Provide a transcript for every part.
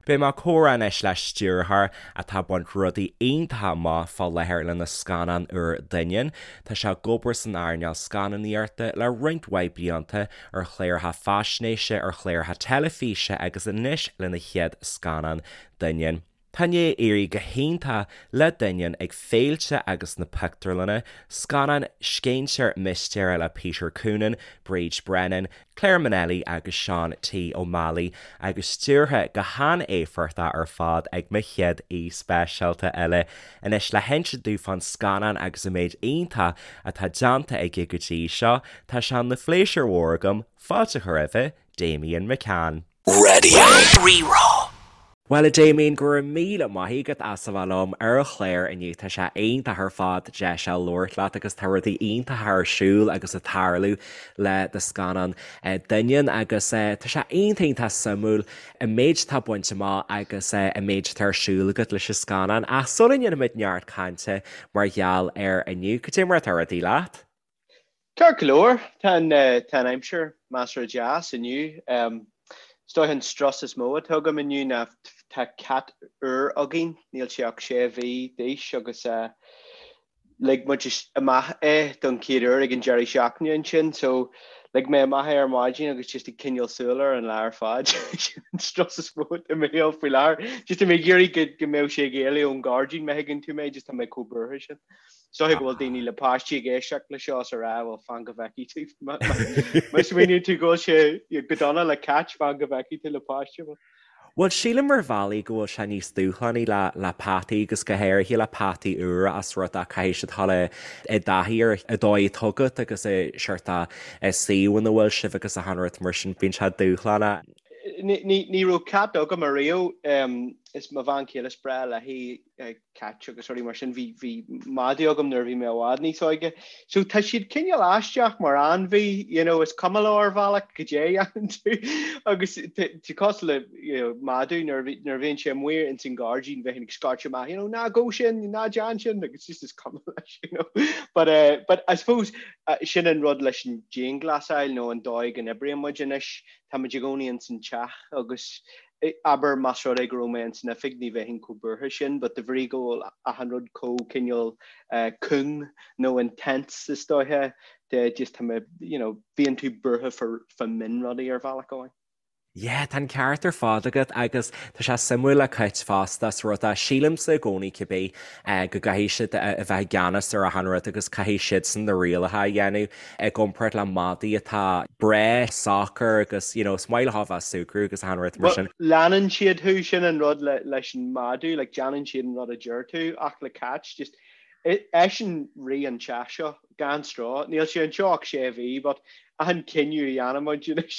Beidh mé ag comhrá anois le stiúrthóir atá ag baint rudaí iontacha amach fá láthair lena scannán úr Doineann. Tá sé ag obair san earnáil scannánaíochta le roinnt mhaith blianta, ar chláracha faisnéise, ar chláracha teilifíse agus anois lena chéad scannán Doineann. Tá i ndiaidh éirí go hiontach le Doineann ag féilte agus sna pictiúrlanna, scannán scéinséir mistéire le Peter Coonan, Bríd Brennan, Clare Monnelly agus Sean T O'Malley agus stiúrtha go han-éifeachtach ar fad ag mo chéad aoi speisialta eile. Anois le hinsint dúinn fán scannán agus an méid iontach atá déanta aige go dtí seo, tá sé ina phléisiúr mhór agam fáilte a chur roimhe, Damian McCann. Raidió Rí-Rá. Bhuel a Damien, go raibh míle maith agat as a bheith liom ar an chlár inniu. Tá sé iontach ar fad deis a labhairt leat agus tá rudaí iontacha ar siúl agus ag tarlú le do scannán Doineann agus tá sé iontach iontach suimiúil an méid atá bainte amach agus an méid atá ar siúl agat leis an scannán. Ach sula ndéanfaimid neart cainte mar gheall air inniu, cad é mar atá rudaí leat? Ceart go leor, tá an tá an aimsir measartha deas inniu. Is dóiche an strus is mó atá agam inniu ná tá cat úr againn, níl sé ach sé mhí d'aois agus lig muid amach é don chéad uair ag an deireadh seachtaine ansin so lig mé amach é ar maidin agus just ag coinneáil súil air an lá ar fad. Sin an strus is mó atá i mo shaol faoi láthair. Just tá mé ag iarraidh go go mbeadh sé ag éalú ón ngairdín, má thuigeann tú mé, just tá mé chomh buartha sin. Is dóiche go bhfuil daoine le páistí ag éisteacht le seo is a rá, bhuel, fan go bhfeicfidh tú. Má smaoiníonn tú go bhfuil sé go dona le cait, fan go bhfeicfidh tú le páiste. Bhuel, sílim ar bhealaí go bhfuil sé níos dúshlánaí le le peataí agus go háirithe le peataí úra as rud é caithfidh siad dul i dtaithí ar an dóigh atá agat agus an seort suíomh ina bhfuil sibh agus achan rud mar sin, bíonn sé dúshlánach. Ní raibh cat agam ariamh, is mo bhean chéile is breá léi cait agus rudaí mar sin. Bhí, bhí madadh agam nuair a bhí mé i bhfad níos óige. So tá siad cineál aisteach mar ainmhí, you know, is cuma leo ar bhealach goidé a dhéanann tú. Agus tá cosúil le, you know, madadh nuair a bhí, nuair a bhíonn sé amuigh ins an gairdín bheinn ag scairteadh amach, you know, ná gabh sin, ná déan sin, agus just is cuma leis, you know. But, uh, but I suppose uh, sin an rud leis an dianghlasáil nó an dóigh go n-oibríonn muid anois, tá muid i gcónaí ins an teach agus Abair más rud é go raibh mé ins an oifig ní bheinn chomh buartha sin but de bhrí go bhfuil achan rud chomh cineál cúng nó intense is dóiche de just tá mé you know bíonn tú buartha fá mionrudaí ar bhealach amháin. Yeah, tá an ceart ar fad agat agus tá sé suimiúil le cait fosta as rud é, sílimse i gcónaí cibé go gcaithfidh siad a bheith i gceannas ar achan rud agus caithfidh siadsan na rialacha a dhéanamh i gcomparáid le madaí atá breá socair agus you know is maith leo a bheith ag súgradh agus achan rud mar sin. Leanann siad thú, sin an rud leis an madadh, like déanann siad an rud a deir tú ach le cait just eisean rí an teach seo gan stró. Níl sé anseo ach sé mhí but achan cinneadh a dhéanann muid anois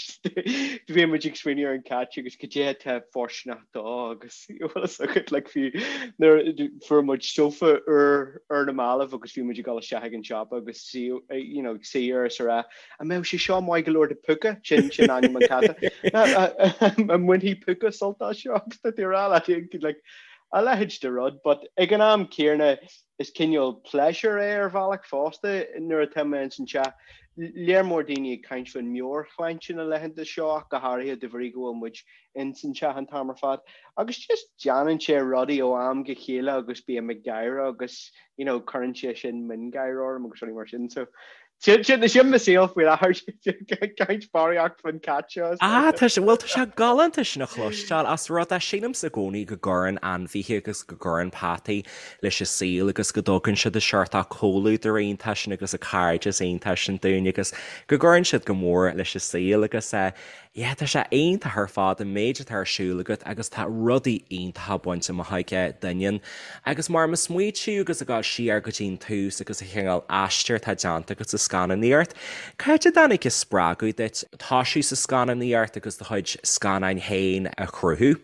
bíonn muid ag smaoineamh ar an cat agus cad é atá fóirsteanach dó agus bhfuil fhios agat like fiú nuair fuair muid sofa úr ar na mallaibh agus bhí muid ag dul isteach ag an siopa agus suí you know ag suí air is a rá an mbeadh sé seo maith go leor do Púca sin sin ainm an chata an mbainfidh Púca sult as seo agus tá tú ag rá leat like a leithéid de rud but ag an am céanna is cineál pléisiúr é ar bhealach fosta nuair atá mé ins an teach. Léar mór daoine ag caint faoin meabhairshláinte na laethanta seo ach go háirithe de bhrí go bhfuil muid ins an teach an t-am ar fad. Agus just déanann sé rudaí ó am go chéile agus bím ag gáire agus you know cuireann sé sin miongháire orm agus rudaí mar sin. So sin sin mo saol faoi láthair caint barraíocht faoin cat seo. Ah, tá sé, bhuel tá sé galánta sin a chloisteáil as rud é sílimse i gcónaí go gcuireann ainmhithe agus go gcuireann peataí leis an saol agus go dtugann siad an seort comhluadar iontach sin agus an cairdeas iontach sin dúinn agus go gcuireann siad go mór leis an saol agus eh Yeah, tá sé iontach ar fad an méid atá ar siúl agat agus tá rudaí iontacha bainte amach aige Doineann. Agus mar ag smaoitiú agus ag dul siar go dtí an tús agus an chineál aistir atá déanta agat sa scannánaíocht, cá háit a dtáinig an spreagadh duit toisiú sa scannánaíocht agus do chuid scannáin féin a chruthú?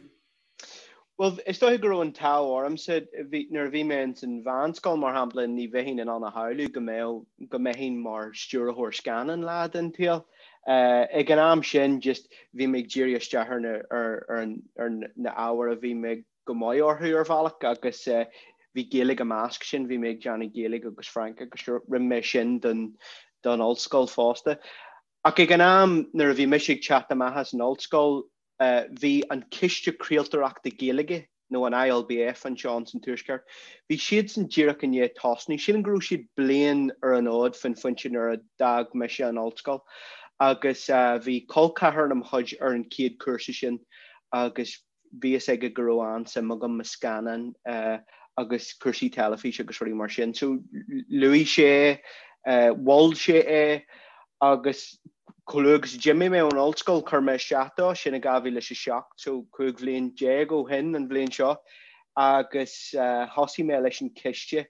Bhuel, is dóiche go raibh an t-ádh ormsa, bhí, nuair a bhí mé ins an mheánscoil, mar shampla, ní bheinn in ann a shamhlú go mbeadh, go mbeinn mar stiúrthóir scannán lá den tsaol. Ag an am sin, just, bhí mé ag díriú isteach ar na, ar, ar an, ar na ábhair a bhí mé go maith orthu ar bhealach agus bhí Gaeilge i measc sin, bhí mé ag déanamh Gaeilge agus Fraincis agus rinne mé sin don, don ollscoil fosta. Ach ag an am nuair a bhí mise ag teacht amach as an ollscoil, Bhí an Ciste Craoltóireachta Gaeilge, nó an ILBF anseo ins an Tuaisceart, bhí siadsan díreach i ndiaidh tosnú. Sílim go raibh siad bliain ar an fhód faoin phointe nuair a d'fhág mise an ollscoil agus bhí col ceathar de mo chuid ar an chéad chúrsa sin agus bhí fhios aige go raibh an-suim agam i scannáin agus cúrsaí teilifíse agus rudaí mar sin. So luaigh sé, mhol sé é agus chomh luath agus a d'imigh mé ón ollscoil chuir mé isteach dó, sin i 2007, so 15 bhliain ó shin an bhliain seo, agus thosaigh mé leis an chiste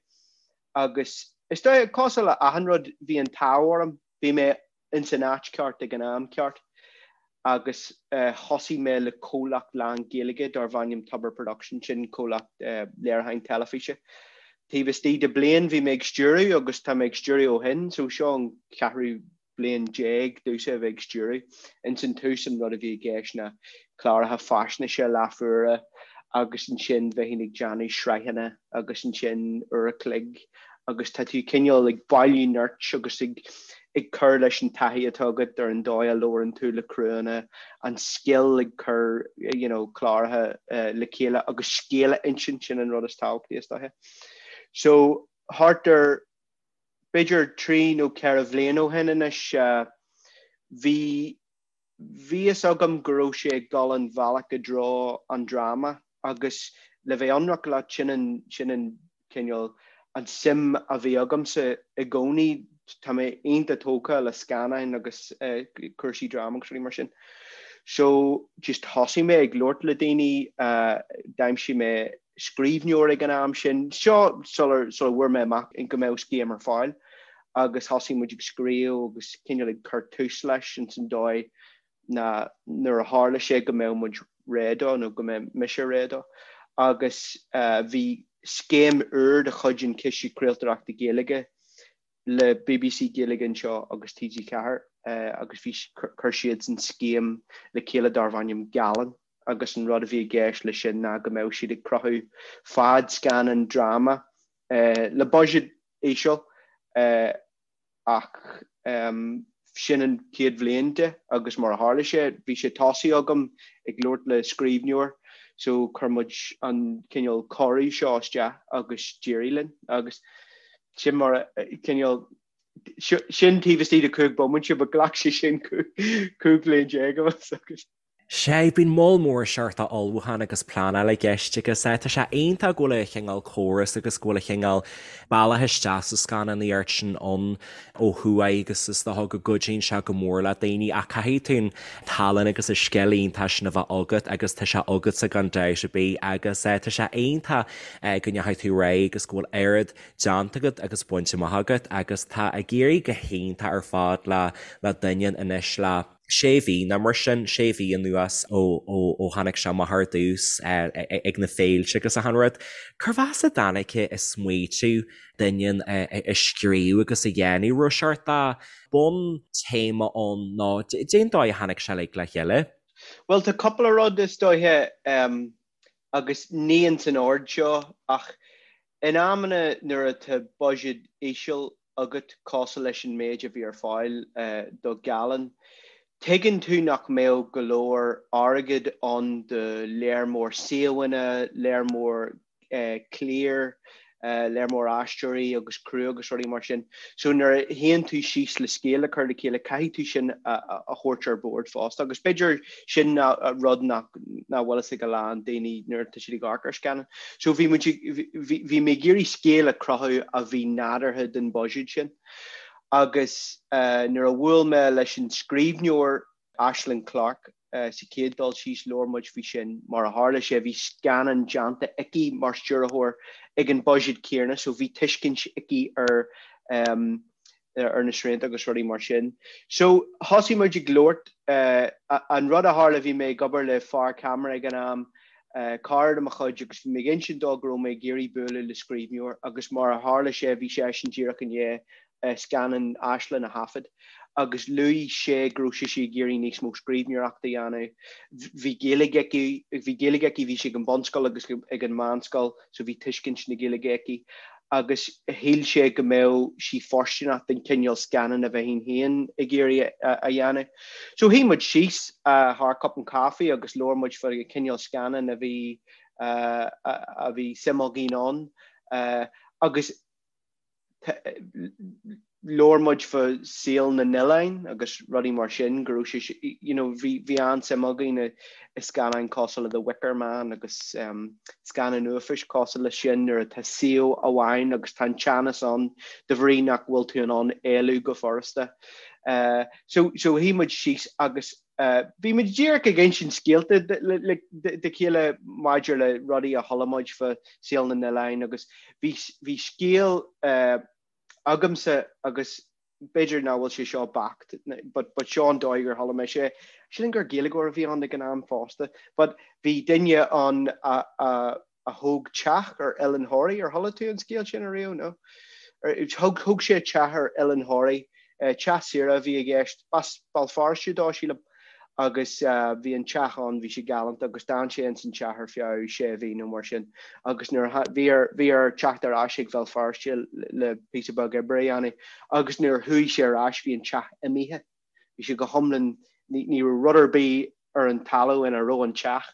agus is dóigh, cosúil le achan rud, bhí an t-ádh orm, bhí mé ins an áit ceart ag an am ceart agus thosaigh mé le comhlacht lán-Ghaeilge darbh ainm Tobar Productions, sin comhlacht léiriúcháin teilifíse. Taobh istigh de bliain bhí mé ag stiúradh agus tá mé ag stiúradh ó shin, so seo an ceathrú bliain domhsa a bheith ag stiúradh. Ins an tús an rud a bhí i gceist ná cláracha faisnéise leathuaire agus ansin bheinn ag déanamh sraitheanna agus ansin uair a chloig agus tá tú cineál ag bailiú nirt agus ag ag cur leis an taithí atá agat ar an dóigh a labhrann tú le criúnna, an scil ag cur you know cláracha le chéile agus scéal a insint, sin an rud is tábhachtaí is dóiche. So thart ar b'fhéidir 3 nó 4 bhliain ó shin anois bhí Bhí fhios agam go raibh sé ag dul an bhealach i dtreo an dráma agus le bheith ionraic leat, sin an, sin an cineál, an suim a bhí agamsa i gcónaí. Tá mé iontach tógtha le scannáin agus cúrsaí dráma agus rudaí mar sin. So just thosaigh mé ag labhairt le daoine, d'aimsigh mé scríbhneoir ag an am sin, seo sular, sula bhfuair mé amach go mbeadh scéim ar fáil. agus thosaigh muid ag scríobh agus cineál ag cur tús leis ins an dóigh ná nuair a tharla sé go mbeadh muid réidh dó nó go mbeadh mise réidh dó. Agus bhí scéim úr de chuid an Chiste Craoltóireachta Gaeilge le BBC Gaeilge anseo agus TG4 agus bhí chuir siadsan scéim le chéile darbh ainm Gealán agus an rud a bhí i gceist leis sin ná go mbeadh siad ag cruthú fadscannán dráma le buiséad íseal ach sin an chéad bhliain de agus mar a tharla sé, bhí sé tosaithe agam ag labhairt le scríbhneoir so chuir muid an cineál cuireadh seo isteach agus d'éirigh linn agus sin mar a cineál sin taobh istigh de 5 bomaite but ghlac sé sin 15 bhliain agus Sea, bíonn moll mór seort ullmhúchán agus pleanáil i gceist agus tá sé iontach go bhfuil an chineál córas agus go bhfuil an chineál bealach isteach sa scannánaíocht sin ann ó thuaidh agus is dócha go gcuidíonn sé go mór le daoine ach caithfidh tú an tallann agus an scil iontach sin a bheith agat agus tá sé agatsa gan dabht ar bith agus tá sé iontach go ndeachaigh tú ar aghaidh agus go bhfuil oiread déanta agat agus bainte amach agat agus tá ag éirí go hiontach ar fad le le Doineann anois le sé mhí nó mar sin, sé mhí anuas ó ó tháinig sé amach ar dtús ag na féilte agus achan rud. Cérbh as a dtáinig an smaoitiú Doineann a scríobh agus a dhéanamh? Raibh seort de bhun-téama ann nó cén dóigh a tháinig sé uilig le chéile? Bhuel, tá cúpla rud is dóiche agus ní ins an ord seo ach in amanna nuair atá buiséad íseal agat cosúil leis an méid a bhí ar fáil do Gealán. Tuigeann tú nach mbeadh go leor airgead ann do léar mór suíomhanna, léar mór cliar, léar mór aisteoirí agus criú agus rudaí mar sin. So nuair a shuíonn tú síos le scéal a chur le chéile, caithfidh tú sin a thabhairt ar bord fosta. Agus b'fhéidir sin rud nach bhfuil fhios ag a lán daoine nuair atá siad ag amharc ar scannán. So bhí muid, bhí mé ag iarraidh scéal a chruthú a bhí nádúrtha don bhuiséad sin. Agus nuair a bhuail mé leis an scríbhneoir Aislinn Clarke sa chéad dul síos, labhair muid faoi sin. Mar a tharla sé, bhí scannán déanta aici mar stiúrthóir ag an buiséad céanna, so bhí tuiscint aici ar ar na srianta agus rudaí mar sin. So thosaigh muid ag labhairt, an rud a tharla, bhí mé ag obair le fear ceamara ag an am, cara de mo chuid, agus bhí mé ag insint dó go raibh mé ag iarraidh bualadh le scríbhneoir agus mar a tharla sé, bhí seisean díreach i ndiaidh scannán Aislinn a thaifead agus luaigh sé go raibh sise ag iarraidh níos mó scríbhneoireachta a dhéanamh. Bhí Gaeilge aici, bhí Gaeilge aici, bhí sí ag an bunscoil agus ag an meánscoil so bhí tuiscint na Gaeilge aici. Agus shíl sé go mbeadh sí fóirsteanach don chineál scannán a bheinn féin ag iarraidh a dhéanamh. So shuigh muid síos thar cupán caife agus labhair muid faoi an cineál scannán a bhí a bhí suim againn ann agus labhair muid fá saol na n-oileán agus rudaí mar sin, go raibh sé, you know, bhí, bhí an-suim againn i, i scannáin cosúil le The Wicker Man agus scannáin uafáis cosúil leis sin nuair atá suíomh amháin agus tá an teannas ann de bhrí nach bhfuil tú in ann éalú go furasta. So, so shuigh muid síos agus bhí muid díreach ag insint scéalta dá chéile maidir le rudaí a chuala muid fá saol na n-oileán agus bhí, bhí scéal agamsa agus b'fhéidir nach bhfuil sé seo beacht but, but seo an dóigh ar chuala mise é. Sílim gur Gaeilgeoir a bhí ann ag an am fosta but bhí duine ann a, a, a thóg teach ar Oileán Thoraí, ar chuala tú an scéal sin ariamh? No? Thug, thóg sé teach ar Oileán Thoraí, teach saoire a bhí i gceist, b'as Béal Feirste dó, sílim, agus bhí an teach ann, bhí sé galánta agus d'fhan sé ins an teach ar feadh sé mhí nó mar sin agus nuair a, bhí air, bhí air teacht ar ais ag Béal Feirste le píosa beag oibre a dhéanamh agus nuair a chuaigh sé ar ais bhí an teach imithe. Bhí sé go hiomlán, ní raibh rud ar bith ar an talamh ina raibh an teach.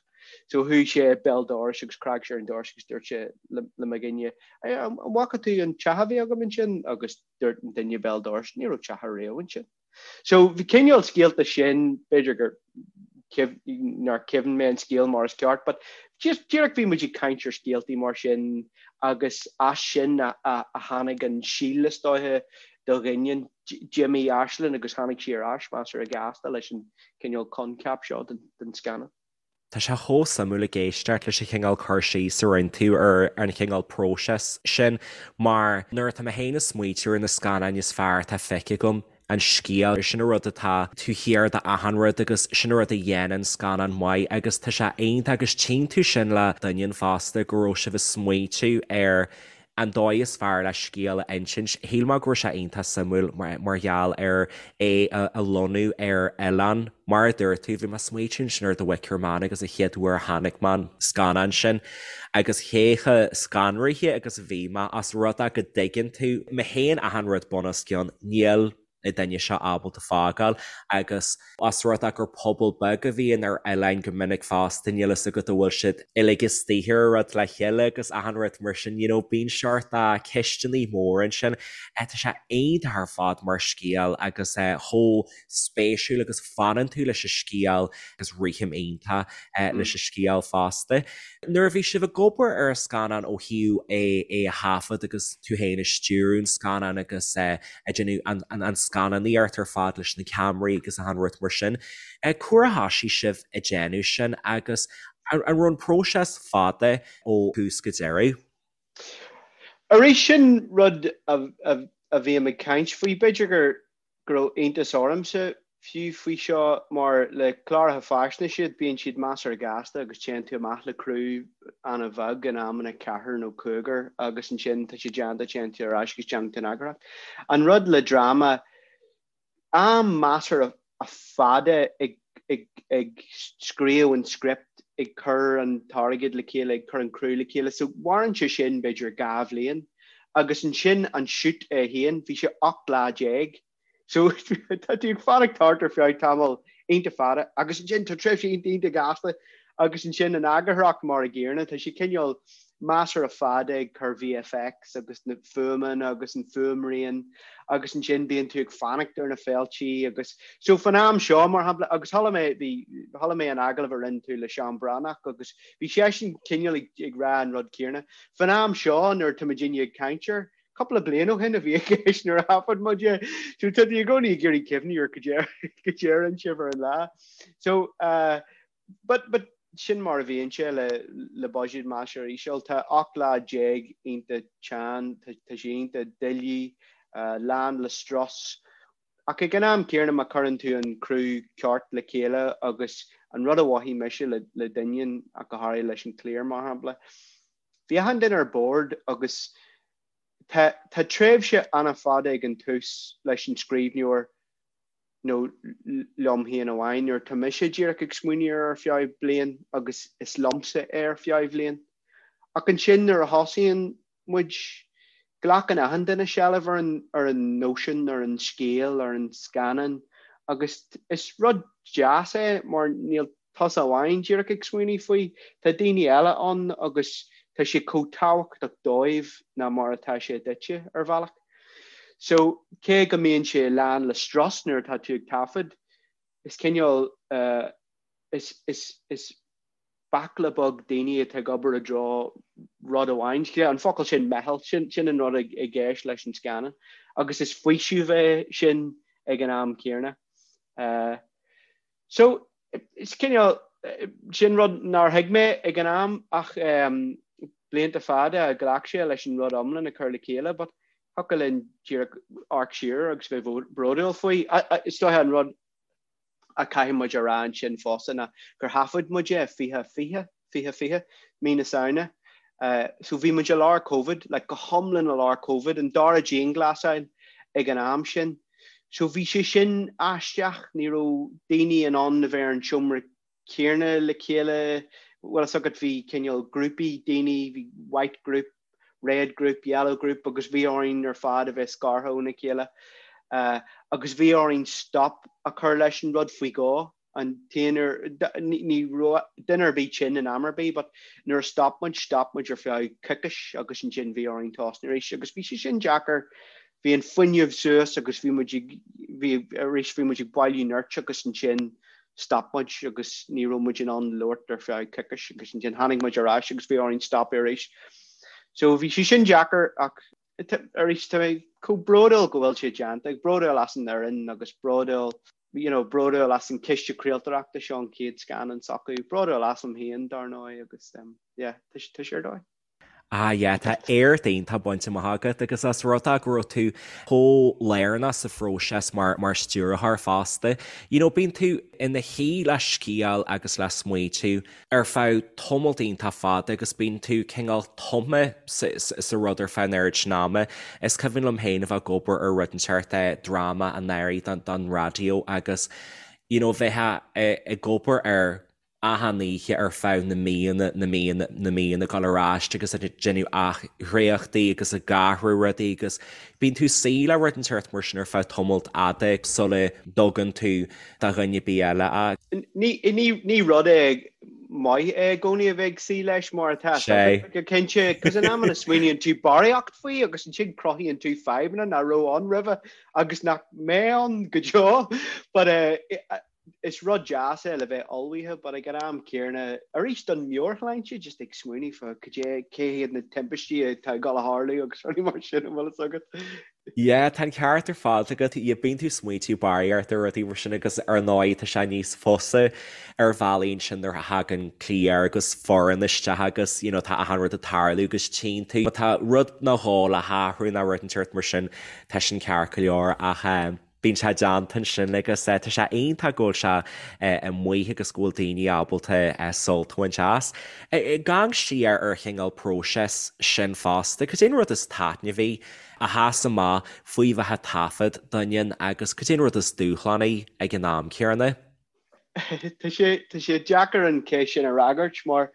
So chuaigh sé béal dorais agus scread sé ar an doras agus dúirt sé le mo dhuine, An bhfaca tú an teach a bhí agam ansin? Agus dúirt an duine béal dorais, Ní raibh teach ariamh ansin. So bhí cineál scéalta sin, b'fhéidir gur nár chuimhin mé an scéal mar is ceart, but just díreach bhí muid ag caint ar scéaltaí mar sin agus as sin a tháinig an síol is dóiche do Dhoineann. D'imigh Aislinn agus tháinig sí ar ais measartha gasta leis an cineál coincheap seo den scannán. Tá sé chomh suimiúil ag éisteacht leis an chineál cur síos a rinne tú ar an chineál próiseas sin mar nuair atá mé féin ag smaoitiú ar na scannáin is fearr atá feicthe agam, an scéal, sin an rud atá taobh thiar d'achan rud agus sin an rud a dhéanann scannán maith agus tá sé iontach agus tchíonn tú sin le Doineann fosta go raibh sibh ag smaoitiú ar an dóigh is fearr le scéal a insint. Shíl mé go raibh sé iontach suimiúil mar gheall ar é a lonnú ar oileán. Mar a dúirt tú, bhí mé ag smaoitiú ansin ar The Wicker Man agus an chéad uair a chonaic mé an scannán sin agus cé chomh scanraithe agus a bhí mé as rud é go dtuigeann tú, má théann achan rud bunoscionn, níl na daoine seo ábalta fágáil agus os rud é gur pobal beag a bhíonn ar oileáin go minic fosta níl fhios agat an bhfuil siad uilig istigh ar an rud le chéile agus achan rud mar sin you know bíonn seort ceisteanna móra ansin. Tá sé iontach ar fad mar scéal agus chomh spéisiúil agus fanann tú leis an scéal agus rithim iontach leis an scéal fosta. Nuair a bhí sibh ag obair ar an scannán ó thaobh é é a thaifead agus tú féin ag stiúradh an scannáin agus ag déanamh an scannánaíocht ar fad leis na ceamaraí agus achan rud mar sin. Cá huair a thoisigh sibh ag déanamh sin agus an raibh an próiseas fada ó thús go deireadh? Arís, sin rud a bhím ag caint faoi. B'fhéidir gur go raibh iontas ormsa fiú faoi seo mar le cláracha faisnéise bíonn siad measartha gasta agus téann tú amach le criú an-bheag in amanna ceathrar nó cúigear agus ansin tá sé déanta téann tú ar ais agus déanann tú an eagarthóireacht. An rud le dráma, am measartha fada ag ag ag scríobh an script, ag cur an t-airgead le chéile, ag cur an criú le chéile so mhaireann sé sin b'fhéidir 2 bhliain. Agus ansin an shoot é féin, bhí sé 18 lá. So tá tú ag fanacht thart ar feadh tamall iontach fada agus ansin tá tréimhse iontach iontach gasta agus ansin an eagarthóireacht mar a gcéanna, tá sé cineál measartha fada ag cur VFX agus na fuaimeanna agus an fuaimrian agus ansin bíonn tú ag fanacht ar na féiltí agus so fan am seo mar shampla agus chuala mé bhí chuala mé an agallamh a rinne tú le Seán Breathnach agus bhí seisean cineál ag ag rá an rud céanna. Fan am seo nuair tá muidinne ag caint air, cúpla bliain ó shin a bhí i gceist nuair a thaifead muid é. So tá tú i gcónaí ag iarraidh cuimhniú ar cad é a rinne sibh ar an lá. So uh, but, but sin mar a bhíonn sé le, le buiséad measartha íseal. Tá 18 lá iontach teann, tá, tá sé iontach doiligh, uh, lán le strus. Ach ag an am céanna má chuireann tú an criú ceart le chéile agus an rud a mhothaigh mise le, le Doineann ach go háirithe leis an cliar mar shampla, bhí achan duine ar bord agus tá, tá tréimhse an-fhada ag an tús leis an scríbhneoir nó liom féin amháin nuair tá mise díreach ag smaoineamh air ar feadh bliain agus is liomsa é ar feadh bhliain. Ach ansin nuair a thosaíonn muid. Glacann achan duine seilbh ar an, ar an nóisean, ar an scéal, ar an scannán agus is rud deas é mar níl tusa amháin díreach ag smaoineamh faoi, tá daoine eile ann agus tá sé chomh tábhachtach dóibh ná mar atá sé duitse, ar bhealach. So, cé go mbíonn sé lán le strus nuair atá tú ag taifead, is cineál, is, is, is baicle beag daoine atá ag obair i dtreo rud amháin. An focal sin meitheal, sin, sin an rud i gceist leis an scannán. Agus is faoiseamh é sin ag an am céanna. So, is cineál, sin rud nár thuig mé ag an am ach blianta fada a ghlac sé leis an rud iomlán a chur le chéile but thiocfadh linn díreach amharc siar agus bheith bródúil faoi. Is dóiche an rud a chaithfidh muid a rá ansin fosta ná gur thaifead muid é 2020, 2020, mí na Samhna. So bhí muid i lár Covid, like go hiomlán i lár Covid, an dara dianghlasáil ag an am sin. So bhí sé sin aisteach, ní raibh daoine in ann a bheith ar an seomra céanna le chéile, bhfuil fhios agat bhí cineál grúpaí daoine, bhí white group, red group, yellow group agus bhí orainn ar fad a bheith scartha óna chéile. Agus bhí orainn stop a chur leis an rud faoi dhó. An t-aon uair, ní raibh duine ar bith tinn in am ar bith but nuair a stop muid, stop muid ar feadh coicís agus ansin bhí orainn tosnú arís agus bhí sé sin deacair. Bhí an fuinneamh suas agus bhí muid ag, bhí, arís bhí muid ag bailiú nirt agus ansin stop muid agus ní raibh muid in ann labhairt ar feadh coicís agus ansin tháinig muid ar ais agus bhí orainn stopadh arís. So bhí sé sin deacair ach arís tá mé chomh bródúil go bhfuil sé déanta, bródúil as an fhoireann agus bródúil you know, bródúil as an Ciste Craoltóireachta seo an chéad scannán s'acu, bródúil asam féin dar ndóigh agus um, yeah, tá sé ar dóigh. Ah yeah, tá éacht iontach bainte amach agat agus as rud é go raibh tú chomh lárnach sa phróiseas mar mar stiúrthóir fosta. You know, bíonn tú ina shuí le scéal agus le smaoitiú ar feadh tamalt iontach fada agus bíonn tú cineál tumtha sa rud ar feadh an oiread sin ama. Is cuimhin liom féin a bheith ag obair ar rud inteacht, dráma anuraidh don raidió agus you know bheith ag obair air achan oíche ar feadh na míonna, na míonna, na míonna, ag dul ar ais agus ag déanamh athdhréachtaí agus ag athrú rudaí agus bíonn tú suí le rud inteacht mar sin ar feadh tamalt fhada sula dtugann tú do dhuine ar bith eile é. Ní rud é maith é i gcónaí a bheith ag suí leis mar atá go cinnte, cos in amanna smaoiníonn tú barraíocht faoi agus ansin cruthaíonn tú fadhbanna nach raibh ann roimhe agus nach mbeidh ann go deo. But eh, is rud deas é le bheith ullmhaithe but ag an am céanna, arís don meabhairshláinte, just ag smaoineamh fá cad é, cé hiad na timpistí atá ag dul a tharlú agus rudaí mar sin an bhfuil fhios agat. Yeah, tá an ceart ar fad agat. Yeah, bíonn tú smaointiú barraíocht ar rudaí mar sin agus ar ndóigh tá sé níos fusa ar bhealaí ansin nuair a thagann cliar agus foireann isteach agus you know tá achan rud ag tarlú agus tchíonn tú má tá rud nó dhó le hathrú nó rud inteacht mar sin tá sin ceart go leor ach eh bíonn sé déanta ansin agus tá sé iontach go bhfuil sé amuigh agus go bhfuil daoine ábalta sult a bhaint as. Ag amharc siar ar chineál próiseas sin fosta, cad é an rud is taitneamhaí a sheas amach faoi bheith ag taifead Doineann agus cad é an rud is dúshlánaí ag an am céanna? Tá sé tá sé deacair an cheist sin a fhreagairt mar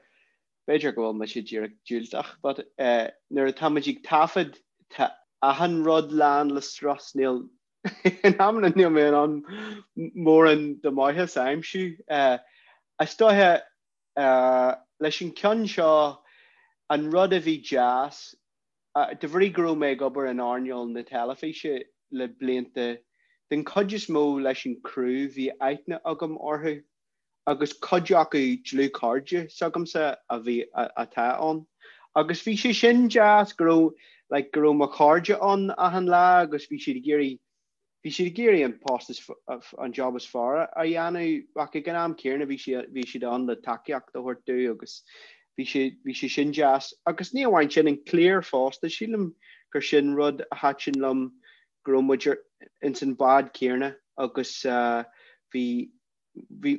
b'fhéidir go bhfuil mise díreach diúltach but nuair atá muid ag taifead tá achan rud lán le strus, níl in amanna níl mé in ann mórán de mhaitheas a aimsiú. Is dóiche leis an ceann seo an rud a bhí deas De bhrí go raibh mé ag obair in earnáil na teilifíse le blianta, den chuid is mó leis an criú bhí aithne agam orthu agus cuid acu dlúthchairde s'agamsa a bhí, atá ann. Agus bhí sé sin deas go raibh, like, go raibh mo chairde ann achan lá agus bhí siad ag iarraidh Bhí siad ag iarraidh an post is, an job is fearr a dhéanamh ach ag an am céanna bhí siad, bhí siad ann le tacaíocht a thabhairt domh agus bhí sé, bhí sé sin deas. Agus ní amháin sin, an cliar fosta, sílim gur sin rud a thaitin liom go raibh muid ar, ins an bád céanna agus bhí, bhí,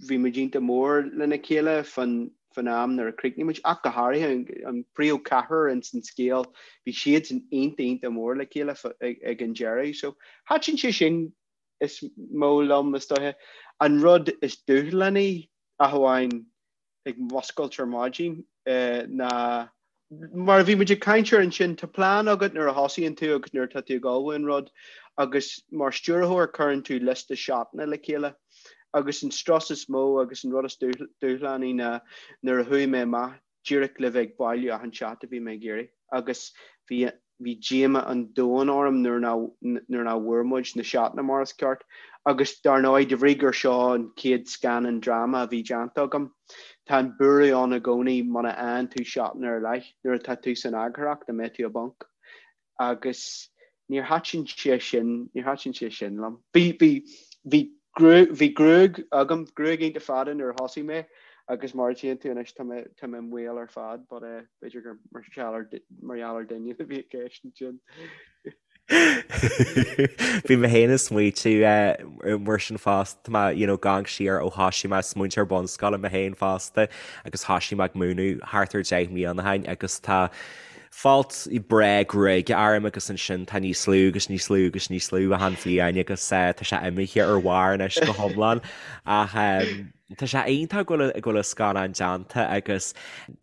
bhí muid iontach mór lena chéile fán, fán am nuair a chríochnaigh muid, ach go háirithe an, an príomhcheathrar ins an scéal, bhí siadsan iontach, iontach mór le chéile ag, ag an deireadh. So, thaitin sé sin is mó liom, is dóiche. An rud is dúshlánaí, ach amháin ag muscailt ar maidin, ná. Mar a bhí muid ag caint air ansin, tá plean agat nuair a thosaíonn tú agus nuair atá tú ag ullmhú an rud agus mar stiúrthóir cuireann tú liosta seatanna le chéile agus an strus is mó agus an rud is dúshlánaí ná nuair a chuaigh mé amach díreach le bheith ag bailiú achan seat a bhí mé ag iarraidh agus bhí bhí díoma an domhain orm nuair nuair nach bhfuair muid na seatanna mar is ceart agus dar ndóigh de bhrí gur seo an chéad scannán dráma a bhí déanta agam tá an buaireamh ann i gcónaí muna fhaigheann tú seatanna ar leith nuair atá tú san eagarthóireacht an mbeidh tú i bponc agus níor thaitin sé sin, níor thaitin sé sin liom. Bhí, bhí, bhí gruaig, bhí gruaig agam, gruaig iontach fada nuair a thosaigh mé agus mar a tchíonn tú anois tá mé, tá mé maol ar fad but eh, b'fhéidir gur mar gheall ar, mar gheall ar Doineann a bhí i gceist ansin. Bhí mé féin ag smaoitiú eh, mar sin fosta, tá mé, you know, ag amharc siar ó thosaigh mé ag múinteoir bunscoile mé féin fosta agus thosaigh mé ag múineadh thart ar 10 mbliana ó shin agus tá folt breá gruaige orm agus ansin tá níos lú agus níos lú agus níos lú achan bhliain agus tá sé imithe ar bharr anois go hiomlán ach tá sé iontach go bhfuil go bhfuil an scannán déanta agus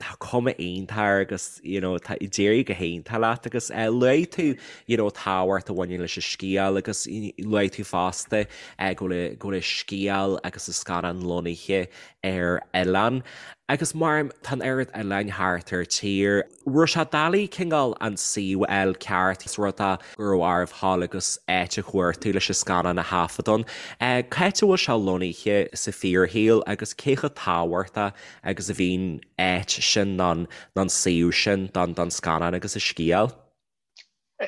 tá cuma iontach air agus you know tá d'éirigh go hiontach leat agus luaigh tú you know tábhacht a bhaineann leis an scéal agus luaigh tú fosta go bhfuil go bhfuil an scéal agus an scannán lonnaithe ar oileán agus mar tá an oiread oileáin thart ar tír. Raibh sé doiligh cineál an suíomh a fháil ceart is rud é go raibh oraibh dhul agus áit a chuartú leis an scannán a thaifead ann. Cá háit a bhfuil sé lonnaithe sa fíorshaol agus cé chomh tábhachtach agus a bhíonn áit sin nó an suíomh sin don scannán agus an scéal?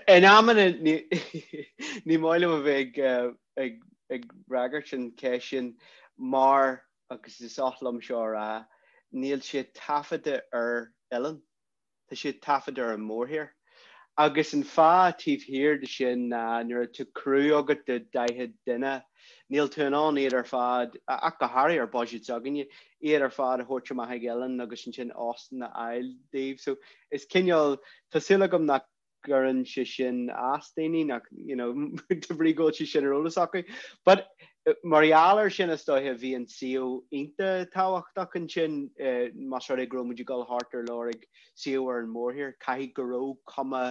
In amanna ní maith liom a bheith ag fhreagairt an cheist sin mar, agus is oth liom seo a rá, níl sé taifeadta ar oileán, tá sé taifeadta ar an mórthír. Agus an fáth taobh thiar de sin ná nuair atá criú agat de 40 duine, níl tú in ann iad ar fad, ach go háirithe ar budget s'againne, iad ar fad a thabhairt amach ag oileán agus ansin óstán a fháil daoibh. So is cineál, tá súil agam nach gcuireann sé sin as daoine, nach, you know, de bhrí go bhfuil sé sin ar eolas acu. But mar gheall air sin is dóiche bhí an suíomh iontach tábhachtach ansin, más rud é go raibh muid ag dul thart ar lorg suíomh ar an mórthír, caithfidh go raibh cuma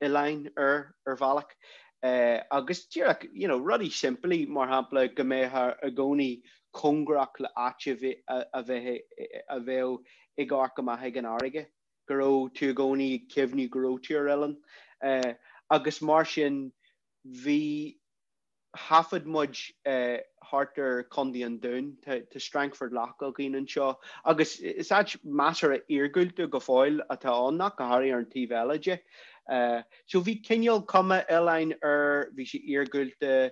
oileáin air ar bhealach. Agus díreach, you know, rudaí simplí, mar shampla go mbeifeá i gcónaí cóngarach le áit a bheith a bheadh ag amharc amach ag an fharraige. go raibh tú i gcónaí ag cuimhniú go raibh tú ar oileán. Agus mar sin bhí, thaifead muid thart ar Chontae an Dúin, tá Strangford Lough againn anseo agus is áit measartha iargúlta go fóill atá ann, ach go háirithe ar an taobh eile de. So bhí cineál cuma oileáin air, bhí sé iargúlta,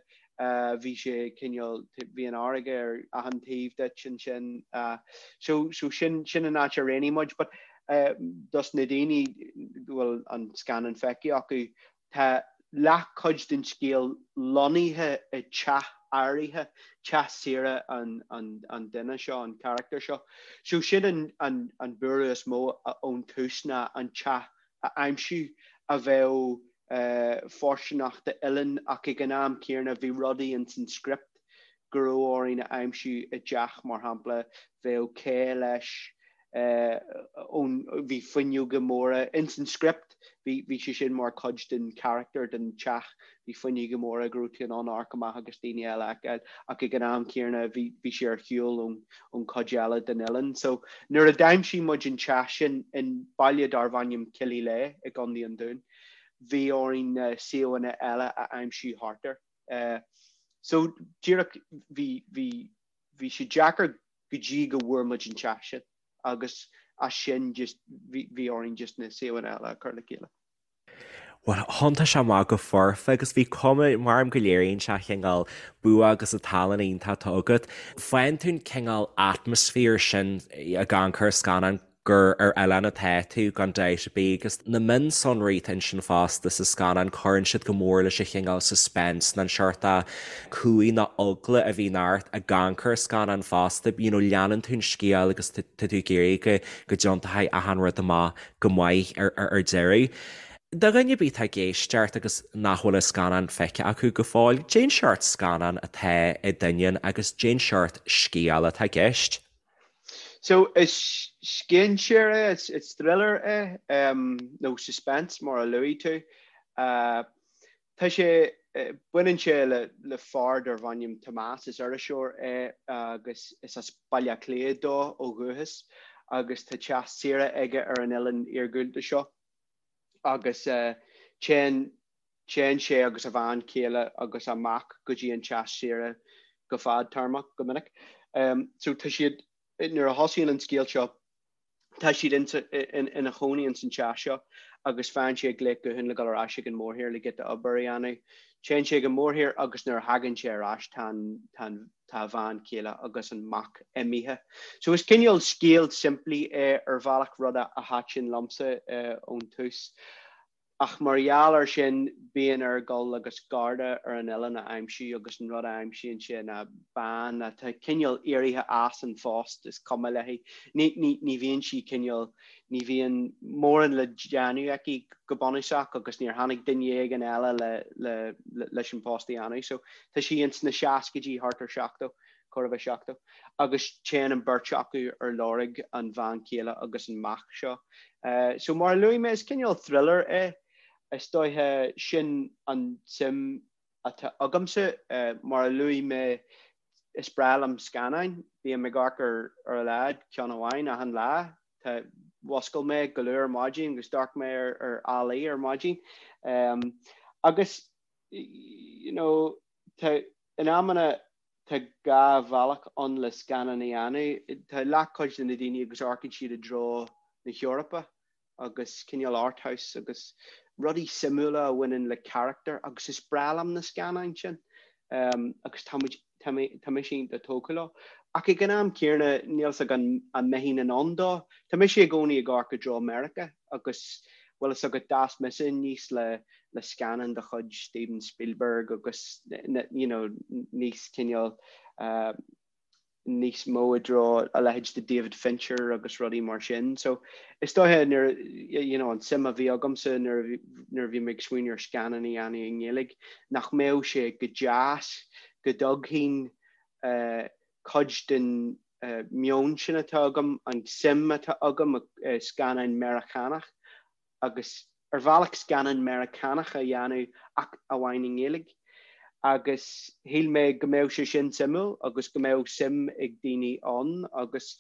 bhí sé cineál, bhí an fharraige ar achan taobh duit ansin. So, so sin, sin an áit a roghnaigh muid. But dos na daoine go bhfuil an scannán feicthe acu, tá leathchuid den scéal lonnaithe i teach áirithe, teach saoire an, an, an duine seo, an charachtar seo. So sin an, an, an buaireamh is mó ón tús ná an teach a aimsiú a bheadh fóirsteanach d'oileán ach ag an am céanna bhí rudaí ins an script go raibh orainn a aimsiú i dteach, mar shampla, bheadh cé leis ón, bhí fuinneoga móra ins an script, bhí, bhí sé sin mar chuid den charachtar den teach, bhí fuinneoga móra go raibh tú in ann amharc amach agus daoine eile a fheiceáil ach ag an am céanna bhí, bhí sé ar shiúl ón, ón chuid eile den oileán. So nuair a d'aimsigh muid an teach sin in baile darbh ainm Killyleagh i gContae an Dúin, bhí orainn na suíomhanna eile a aimsiú thart air. So díreach bhí, bhí, bhí sé deacair go dtí go bhfuair muid an teach sin agus as sin just bhí, bhí orainn just na suíomhanna eile a chur le chéile. Bhuel, thiontaigh sé amach go foirfe agus bhí cuma, maram go léiríonn sé cineál bua agus an tallann iontach atá agat. Faigheann tú an cineál atmaisféar sin ag amharc ar an scannán gur ar oileán atá tú, gan dabht ar bith, agus na mionsonraí atá ansin fosta sa scannán, cuireann siad go mór leis an chineál suspense nó an seort cumhaidh nó eagla a bhíonn ort ag amharc ar an scannán fosta. You know, leanann tú an scéal agus tá tú ag iarraidh go go dtiontóidh achan rud amach go maith ar ar deireadh. Do dhuine ar bith atá ag éisteacht agus nach bhfuil an scannán feicthe acu go fóill, cén seort scannán atá i Doineann agus cén seort scéal atá i gceist. So is scéinséir é, is thriller é, nó suspense mar a luaigh tú. Tá sé, baineann sé le le fear darbh ainm Tomás, is iriseoir é agus is as Baile Átha Cliath dó ó dhúchas agus tá teach saoire aige ar an oileán iargúlta seo agus téann téann sé agus a bhean chéile agus a mac go dtí an teach saoire go fadtéarmach go minic. So tá siad, nuair a thosaíonn an scéal seo, tá siad ina chónaí ins an teach seo agus faigheann sé glaoch gutháin le dul ar ais ag an mórthír le giota obair a dhéanamh. Téann sé ag an mórthír agus nuair a thagann sé ar ais tá an, tá an, tá a bhean chéile agus an mac imithe. So is cineál scéal simplí é ar bhealach, rud a thaitin liomsa ón tús. Ach mar gheall air sin, bíonn air dul agus garda ar an oileán a aimsiú agus an rud a aimsíonn sé ná bean atá cineál éirithe as an phost, is cuma léi. Ní, ní, ní bhíonn sí cineál, ní bhíonn mórán le déanamh aici go bunúsach agus níor tháinig duine éigin eile le, le, leis an post a dhéanamh. So tá sí ins na seascaidí, thart ar 70. chóir a bheith 70, agus téann an bheirt acu ar lorg an bhean chéile agus an mac seo. So mar a luaigh mé, is cineál thriller é. Is dóiche sin an tsuim atá agamsa. Mar a luaigh mé, is breá liom scannáin. Bím ag amharc ar ar a laghad ceann amháin achan lá. Tá, mhuscail mé go luath ar maidin agus d'amharc mé ar ar ALL-E ar maidin. Agus you know, tá, in amanna tá 2 bhealach ann le scannán a dhéanamh. Tá leathchuid de na daoine agus amharcann siad i dtreo na hEorpa agus cineál art house agus rudaí suimiúla a bhaineann le carachtar agus is breá liom na scannáin sin agus tá muid, tá mé, tá mise iontach tógtha leo. Ach ag an am céanna níl 's agam an mbeinn in ann dó. Tá mise i gcónaí ag amharc i dtreo Meiriceá agus bhfuil fhios agat d'fhás mise aníos le le scannáin de chuid Steven Spielberg agus you know níos cineál níos mó i dtreo a leithéid de David Fincher agus rudaí mar sin. So is dóiche nuair you know an suim a bhí agamsa nuair a bhí nuair a bhí mé ag smaoineamh ar scannán a dhéanamh i nGaeilge nach mbeadh sé go deas go dtógfainn cuid den meon sin atá agam, an suim atá agam i scannáin Meiriceánach agus ar bhealach scannán Meiriceánach a dhéanamh ach amháin i nGaeilge. Agus shíl mé go mbeadh sé sin suimiúil agus go mbeadh suim ag daoine ann agus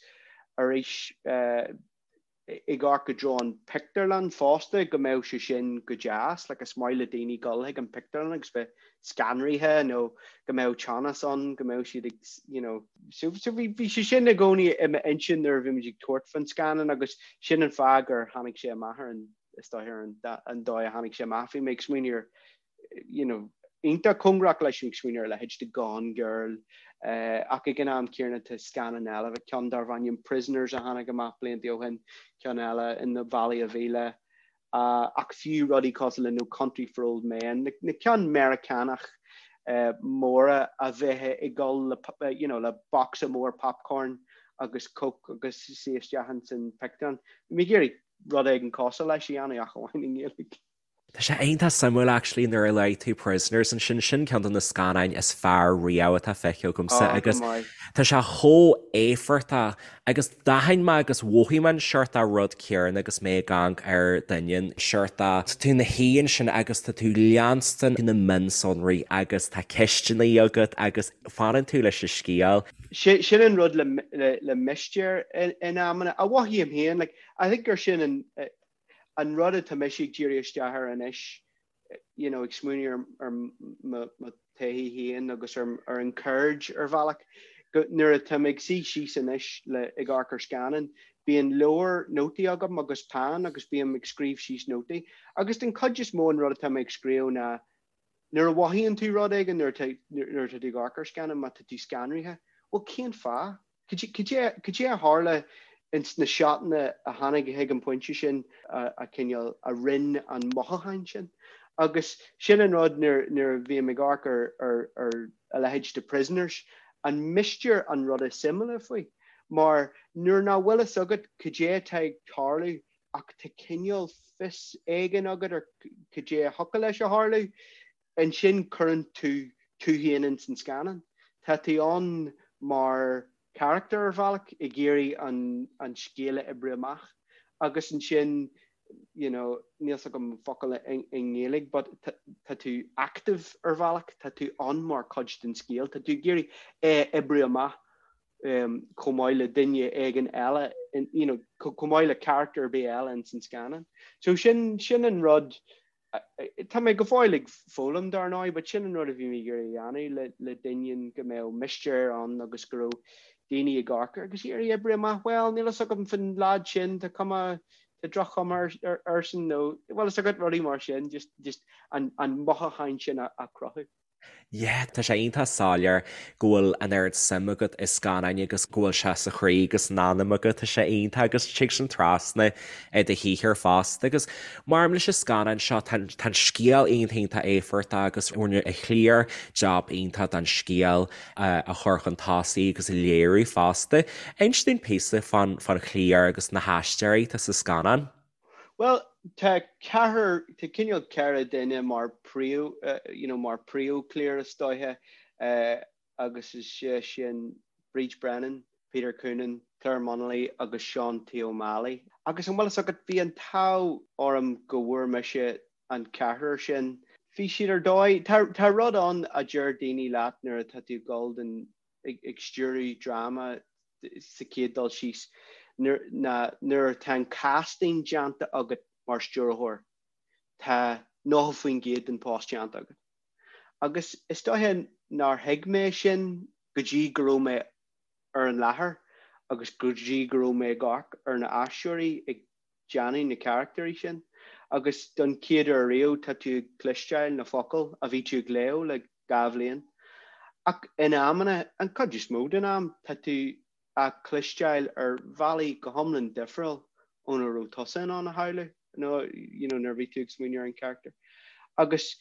arís ag amharc i dtreo an pictiúrlann fosta go mbeadh sé sin go deas, like is maith le daoine dul chuig an pictiúrlann agus bheith scanraithe nó go mbeadh teannas ann, go mbeadh siad ag you know. So so bhí bhí sé sin i gcónaí i m'intinn nuair a bhí muid ag tabhairt faoin scannán agus sin an fáth gur tháinig sé amach ar an is dóigh ar an an dóigh a tháinig sé amach. Bhí mé ag smaoineamh ar you know iontach cóngarach leis ag smaoineamh ar a leithéid de Gone Girl ach ag an am céanna tá scannán eile, ceann darbh ainm Prisoners a tháinig amach blianta ó shin, ceann eile in The Valley of Elah ach fiú rudaí cosúil le No Country for Old Men, na ceann Meiriceánach móra a bheith ag dul le you know le bocsa mór popcorn agus coke agus suí isteach ins an pictiúrlann. Bhí mé ag iarraidh rud éigin cosúil leis a dhéanamh ach amháin i nGaeilge. Tá sé iontach suimiúil actually nuair a luaigh tú Prisoners ansin, sin ceann de na scannáin is fearr riamh atá feicthe agamsa Ó, go agus maith. tá sé chomh éifeachtach agus d'aithin mé agus mhothaigh mé an seort rud céanna agus mé ag amharc ar Doineann, seort tá tú ina shuí ansin agus tá tú leanstan na mionsonraí agus tá ceisteanna agat agus fanann tú leis an scéal. Sin an rud le le mistéir in amanna, a mhothaím féin, like I think gur sin an an rud atá mise ag díriú isteach air anois, you know, ag smaoineamh ar mo thaithí féin agus ar ar an cheird ar bhealach, go nuair atá mé ag suí síos anois le ag amharc ar scannán, bíonn leabhar nótaí agam agus peann agus bím ag scríobh síos nótaí. Agus den chuid is mó an rud atá mé ag scríobh ná nuair a mhothaíonn tú rud éigin, nuair atá nuair atá tú ag amharc ar scannán, má tá tú scanraithe, bhuel cén fáth? Cad é a tharla ins na seotanna a tháinig chuig an bpointe sin a cineál a rinn an mothúchán sin? Agus sin an rud nuair nuair a bhím ag amharc ar ar ar a leithéid de Prisoners, an mistéir an rud is suimiúla faoi. Mar nuair nach bhfuil fhios agat cad é atá ag tarlú ach tá cineál fios éigin agat ar cad é a thiocfadh leis a tharlú, ansin cuireann tú tú féin ins an scannán. Tá tú ann mar. charachtar ar bhealach ag iarraidh an an scéal a oibriú amach agus ansin you know níl 's agam focal i nGaeilge but tá tú active ar bhealach, tá tú ann mar chuid den scéal, tá tú ag iarraidh é a oibriú amach chomh maith le duine éigin eile, you know, chomh maith le charachtar ar bith eile ins an scannán. So sin sin an rud Tá mé go fóill ag foghlaim dar ndóigh, but sin an rud a bhí mé ag iarraidh a dhéanamh le le Doineann, go mbeadh mistéir ann agus go raibh daoine ag amharc air agus iarraidh oibriú amach, bhuel, níl fhios agam fán leaid sin, tá cuma, tá droch-chuma airsean nó, bhfuil fhios agat, rudaí mar sin, just, just an, an mothúchán sin a, a chruthú. Yeah, tá sé iontach soiléir go bhfuil an oiread suim agat i scannáin agus go bhfuil sé sa chroí agus san anam agat, tá sé iontach agus tig sin trasna i do shaothar fosta agus mar leis an scannán seo tá an scéal iontach iontach éifeachtach agus rinne an chliar jab iontach den scéal a chur chun tosaigh agus a léiriú fosta. Inis dúinn píosa fán chliar agus na haisteoirí atá sa scannán. Bhuel, tá ceathrar, tá cineál ceithre duine mar príomh, you know, mar príomhchliar is dóiche agus is é sin Bríd Brennan, Peter Coonan, Clare Munnelly agus Seán T. Ó Málaí. Agus an bhfuil fhios agat, bhí an t-ádh orm go bhfuair mise an ceathrar sin. Bhí siad ar dóigh, tá, tá rud ann a deir daoine leat nuair atá tú ag dul don, ag stiúradh dráma sa chéad dul síos, ná nuair atá an casting déanta agat mar stiúrthóir, tá 90% den post déanta agat. Agus is dóiche nár thuig mé sin go dtí go raibh mé ar an láthair agus go dtí go raibh mé ag amharc ar na aisteoirí ag déanamh na carachtairí sin agus don chéad uair riamh tá tú ag cloisteáil na focail a bhí tú ag léamh le 2 bhliain. Ach in amanna, an chuid is mó den am, tá tú á cloisteáil ar bhealaí go hiomlán difriúil óna raibh tusa in ann a shamhlú nó you know nuair a bhí tú ag smaoineamh ar an charachtar. Agus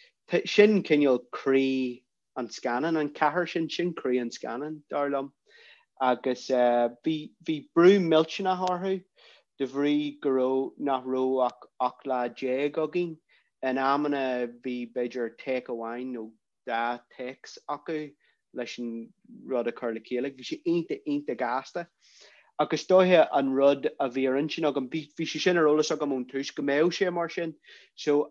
sin cineál croí an scannán, an ceathrar sin, sin croí an scannáin, dar liom. Agus bhí, bhí brú millteanach orthu de bhrí go raibh, nach raibh ach 18 lá againn. In amanna bhí b'fhéidir take amháin nó dhá takes acu leis an rud a chur le chéile. Bhí sé iontach, iontach gasta. Ach is dóiche an rud a bhí ar intinn agam, bhí, bhí sé sin ar eolas agam ón tús go mbeadh sé mar sin. So,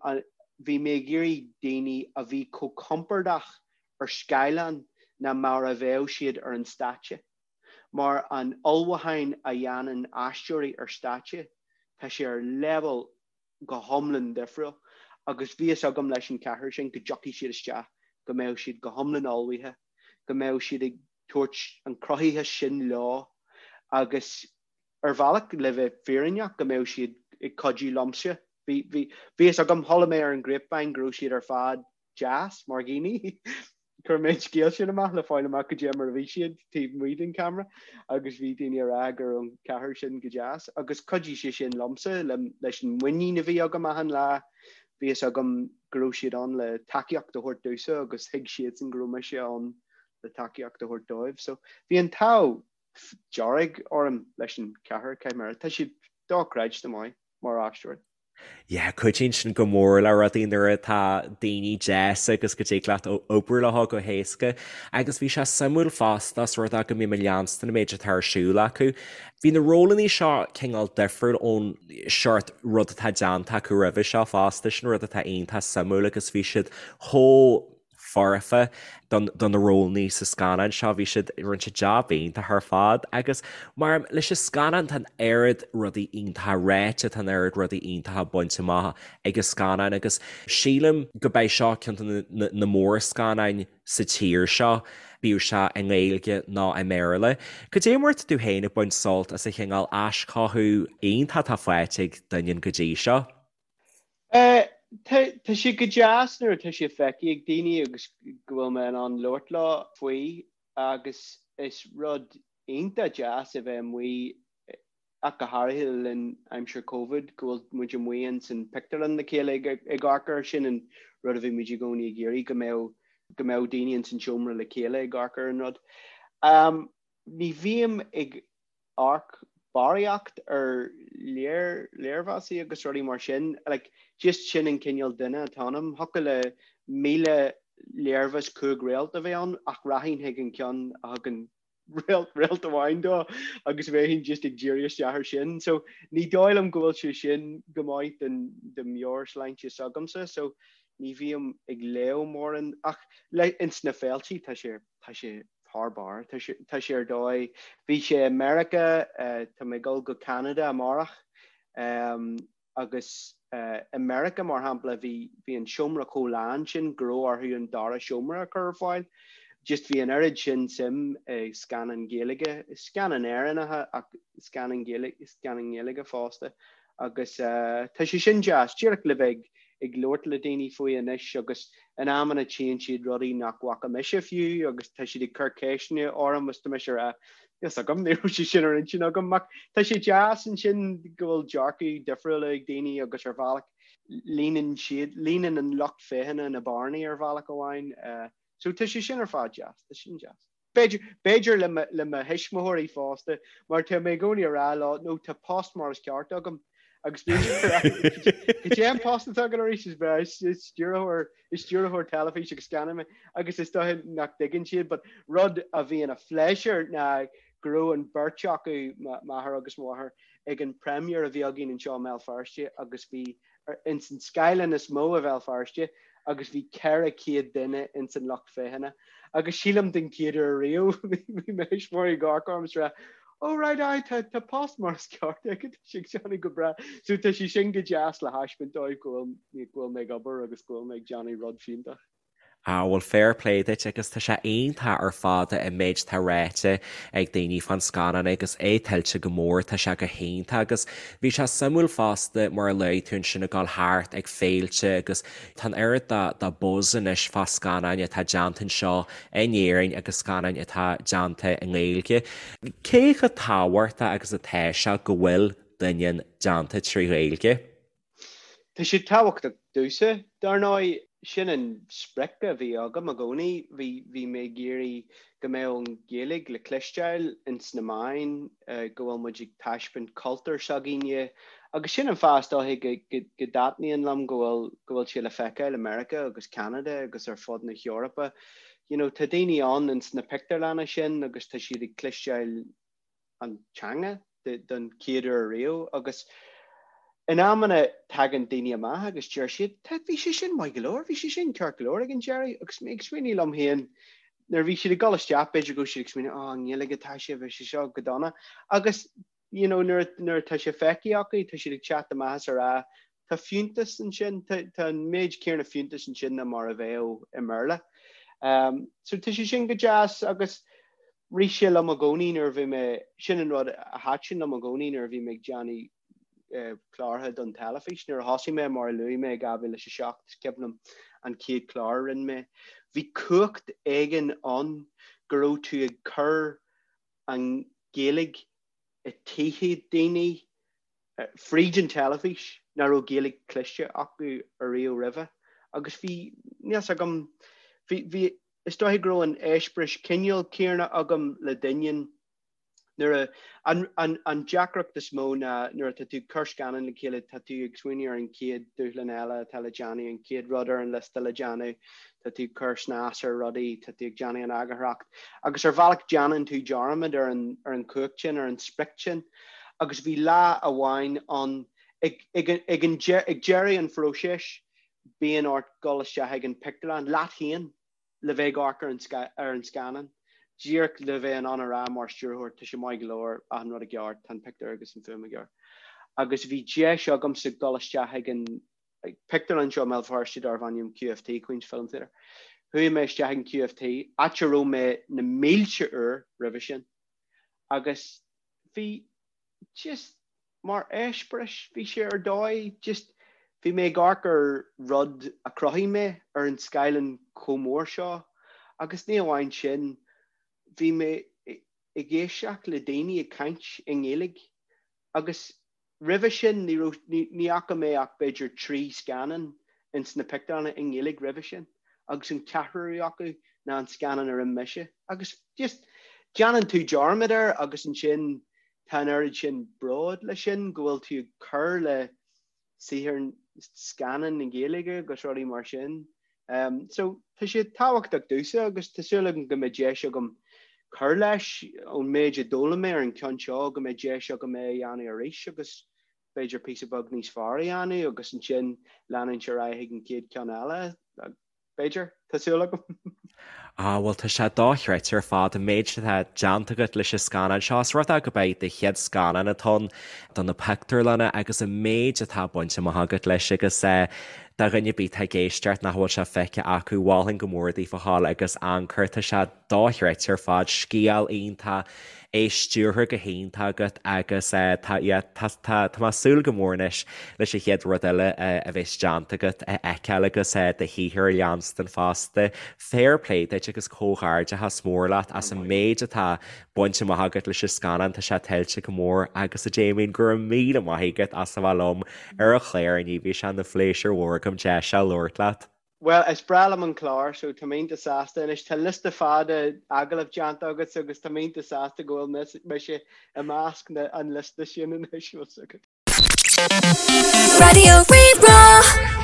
bhí mé ag iarraidh daoine a bhí chomh compordach ar scáileán ná mar a bheadh siad ar an stáitse. Mar an ullmhúchán a dhéanann aisteoirí ar stáitse, tá sé ar leibhéal go hiomlán difriúil. Agus bhí fhios agam leis an cheathrar sin go dtiocfaidh siad isteach, go mbeadh siad go hiomlán ullmhaithe, go mbeadh siad ag tabhairt an cruthaitheas sin leo agus ar bhealach, le bheith fírinneach, go mbeadh siad ag cuidiú liomsa. Bhí, bhí, bhí fhios agam, chuala mé ar an grapevine go raibh siad ar fad deas mar dhaoine. Chuir mé an scéal sin amach le fáil amach goidé mar a bhí siad taobh amuigh den camera agus bhí daoine ag rá go raibh an ceathrar sin go deas agus chuidigh sé sin liomsa le, leis an muinín a bhí agam achan lá. Bhí fhios agam go raibh siad ann le tacaíocht a thabhairt domhsa agus thuig siadsan go raibh mise ann le tacaíocht a thabhairt dóibh. So bhí an t-ádh dearg orm leis an cheathrar, caithfidh mé a rá. Tá siad dochreidte maith mar aisteoirí. Yeah, cuidíonn sin go mór le rudaí nuair atá daoine deas agus go dtig leat obair leo go héasca. Agus bhí sé suimiúil fosta os rud é go mbím ag leanstan an méid atá ar siúl acu. Bhí na rólanna seo cineál difriúil ón seort rud atá déanta acu roimhe seo fosta, sin rud atá iontach suimiúil agus bhí siad chomh foirfe do na rólanna sa scannán seo. Bhí siad, rinne siad jab iontach ar fad agus mar leis an scannán tá an oiread rudaí iontacha ráite, tá an oiread rudaí iontacha bainte amach ag an scannán agus sílim go beidh seo ceann de na mórscannáin sa tír seo, bíodh sé i nGaeilge nó i mBéarla. Cad é mar atá tú féin ag baint sult as an chineál aischothú iontach atá faighte ag Doineann go dtí seo? Tá sé go deas nuair atá sé feicthe ag daoine agus go bhfuil mé in ann labhairt leo faoi agus is rud iontach deas a bheith amuigh, ach go háirithe le linn aimsir Covid, go bhfuil muid amuigh ins an pictiúrlann le chéile ag amharc air. Sin an rud a bhí muid i gcónaí ag iarraidh, go mbeadh go mbeadh daoine ins an seomra le chéile ag amharc ar an rud. Ní bhím ag amharc barraíocht ar léirmheasaí agus rudaí mar sin. Like, just sin an cineál duine atá ionam. Thiocfadh le 1,000 léirmheas 5 réalt a bheith ann ach rachainn chuig an ceann a thugann Réalt amháin dó agus bheinn just ag díriú isteach air sin. So ní dóigh liom go bhfuil sé sin go maith don do meabhairshláinte s'agamsa so ní bhím ag léamh mórán ach le ins na féiltí tá sé tá sé thar barr tá sé tá sé ar dóigh. Bhí sé i Meiriceá tá mé ag dul go Ceanada amárach Agus i Meiriceá, mar shampla, bhí bhí an seomra chomh lán sin go raibh orthu an dara seomra a chur ar fáil. Just bhí an oiread sin suim i scannáin Ghaeilge, scannáin Éireannacha ach scannáin Ghaeilge, scannáin Ghaeilge fosta. Agus tá sé sin deas, díreach le bheith ag labhairt le daoine faoi anois agus in amanna tchíonn siad rudaí nach bhfaca mise fiú agus tá siad ag cur ceisteanna orm agus tá mise ag rá fhios agam, ní raibh sé sin ar intinn agam ach tá sé deas ansin go bhfuil dearcadh difriúla ag daoine agus ar bhealach líonann siad, líonann an lucht féachana na bearnaí ar bhealach amháin. So tá sé sin ar fad deas, tá sin deas. B'fhéidir, b'fhéidir le mo, le mo thuismitheoirí fosta mar tá mé i gcónaí ag rá leo, no tá post mar is ceart agam agus bíonn siad ag rá, cad é an post atá agat arís is breá, is stiúrthóir, is stiúrthóir teilifíse agus scannán mé agus is dóiche nach dtuigeann siad but rud a bhí ina phléisiúr ná go raibh an bheirt acu, m'athair agus mo mháthair, ag an premiere a bhí againn anseo i mBéal Feirste agus bhí ins an scáileán is mó i Bhéal Feirste agus bhí 400 duine ins an lucht féachana agus sílim den chéad uair riamh bhí mo thuismitheoirí ag amharc orm is ag rá Oh right aye tá tá post mar is ceart aige tá sé ag déanamh go breá. So tá sé sin go deas le thaispeáint dóibh go bhfuil go bhfuil mé ag obair agus go bhfuil mé ag déanamh rud fiúntach. Ah bhuel fair play duit agus tá sé iontach ar fad an méid atá ráite ag daoine fán scannán agus é tuillte go mór, tá sé go hiontach agus bhí sé suimiúil fosta mar a luaigh tú ansin ag dul thart ag féilte agus tá an oiread de buzz anois fá scannáin atá déanta anseo in Éirinn agus scannáin atá déanta i nGaeilge. Cé chomh tábhachtach agus atá sé go bhfuil Doineann déanta trí Ghaeilge? Tá sé tábhachtach domhsa, dar ndóigh. Sin an sprioc a bhí agam i gcónaí. Bhí, bhí mé ag iarraidh go mbeadh an Ghaeilge le cloisteáil ins na meáin, go bhfuil muid ag taispeáint cultúr s'againne. Agus sin an fáth is dóiche go, go, go dtaitníonn liom go bhfuil, go bhfuil sé le feiceáil i Meiriceá agus Ceanada agus ar fud na hEorpa. You know, tá daoine ann ins na pictiúrlanna sin agus tá siad ag cloisteáil an teanga don chéad uair riamh agus in amanna tagann daoine amach agus deir siad tá bhí sé sin maith go leor, bhí sé sin ceart go leor ag an deireadh agus mé ag smaoineamh liom féin nuair a bhí siad ag dul isteach b'fhéidir go raibh siad ag smaoineamh oh i nGaeilge atá sé bhí sé seo go dona agus you know nuair nuair atá sé feicthe acu tá siad ag teacht amach is ag rá Tá fiúntas ansin, tá an méid céanna fiúntais ansin ná mar a bheadh i mBéarla. So tá sé sin go deas agus rith sé liom i gcónaí nuair a bhí mé, sin an rud a thaitin liom i gcónaí nuair a bhí mé ag déanamh clártha don teilifís. Nuair a thosaigh mé, mar a luaigh mé, i 2007, is cuimhin liom an chéad chlár a rinne mé, bhí cumhacht éigin ann go raibh tú ag cur an Ghaeilge i dtithe daoine fríd an teilifís nach raibh Gaeilge cloiste acu ariamh roimhe agus bhí, níl 's agam, bhí, bhí, is dóiche go raibh an eispéireas cineál céanna agam le Doineann nuair a, an, an, an deacracht is mó ná nuair atá tú ag cur scannán le chéile tá tú ag smaoineamh ar an chéad dúshlán eile atá le déanamh, an chéad rud ar an liosta le déanamh, tá tú ag cur snas ar rudaí, tá tú ag déanamh an eagarthóireacht agus ar bhealach déanann tú dearmad ar an, ar an chumhacht sin, ar an sprioc sin. Agus bhí lá amháin ann, ag, ag, ag an, ag deireadh an phróisis, bíonn ort dul isteach ag an pictiúrlann leat féin le bheith ag amharc ar an, ar an scannán, díreach le bheith in ann a rá mar stiúrthóir, tá sé maith go leor, achan rud i gceart, tá an pictiúr agus an fuaim i gceart. Agus bhí deis agamsa dul isteach ag an pictiúrlann seo i mBéal Feirste darbh ainm QFT, Queen's Film Theatre. Chuaigh mé isteach ag an QFT, áit a raibh mé na mílte uair roimhe sin, agus bhí just mar eispéireas, bhí sé ar dóigh, just bhí mé ag amharc ar rud a chruthaigh mé ar an scáileán chomh mór seo agus ní amháin sin, bhí mé ag éisteacht le daoine ag caint i nGaeilge agus Roimhe sin ní raibh, ní fhaca mé ach b'fhéidir 3 scannán ins na pictiúrlanna i nGaeilge roimhe sin agus an ceathrú acu ná an scannán a rinne mise. Agus just déanann tú dearmad air agus ansin tá an oiread sin bród le sin go bhfuil tú ag cur le saothar scannán na Gaeilge agus rudaí mar sin. So tá sé tábhachtach domhsa agus tá súil agam go mbeidh deis agam. cur leis ón méid a d'fhoghlaim mé ar an ceann seo go mbeidh deis agam é a dhéanamh arís agus b'fhéidir píosa beag níos fearr a dhéanamh agus ansin leanúint ar aghaidh chuig an chéad ceann eile. B'fhéidir, tá súil agam. Ah, bhuel tá sé dochreidte ar fad an méid atá déanta agat leis an scannán seo. Is rud é gurb é do chéad scannán atá ann do na pictiúrlanna agus an méid atá bainte amach agat leis agus do dhuine ar bith atá ag éisteacht nach bhfuil sé feicthe acu, mholfainn go mór daoibh a ghabháil agus amharc air, tá sé dochreidte ar fad, scéal iontach, é stiúrtha go hiontach agat agus tá, yeah, tá, tá, tá mé ag súil go mór anois leis an chéad rud eile a bheas déanta agat a fheiceáil agus do shaothar a leanstan fosta. Fair play duit agus comhghairdeachas mór leat as an méid atá bainte amach agat leis an scannán, tá sé tuillte go mór agus a Damien, go raibh míle maith agat as a bheith liom ar an chlár inniu, bhí sé ina phléisiúr mhór agam deis a labhairt leat. Bhuel, is breá liom an clár so tá mé iontach sásta anois. Tá liosta fada agallamh déanta agat agus tá mé iontach sásta go bhfuil mise i measc an liosta sin anois. Raidió Rí-Rá.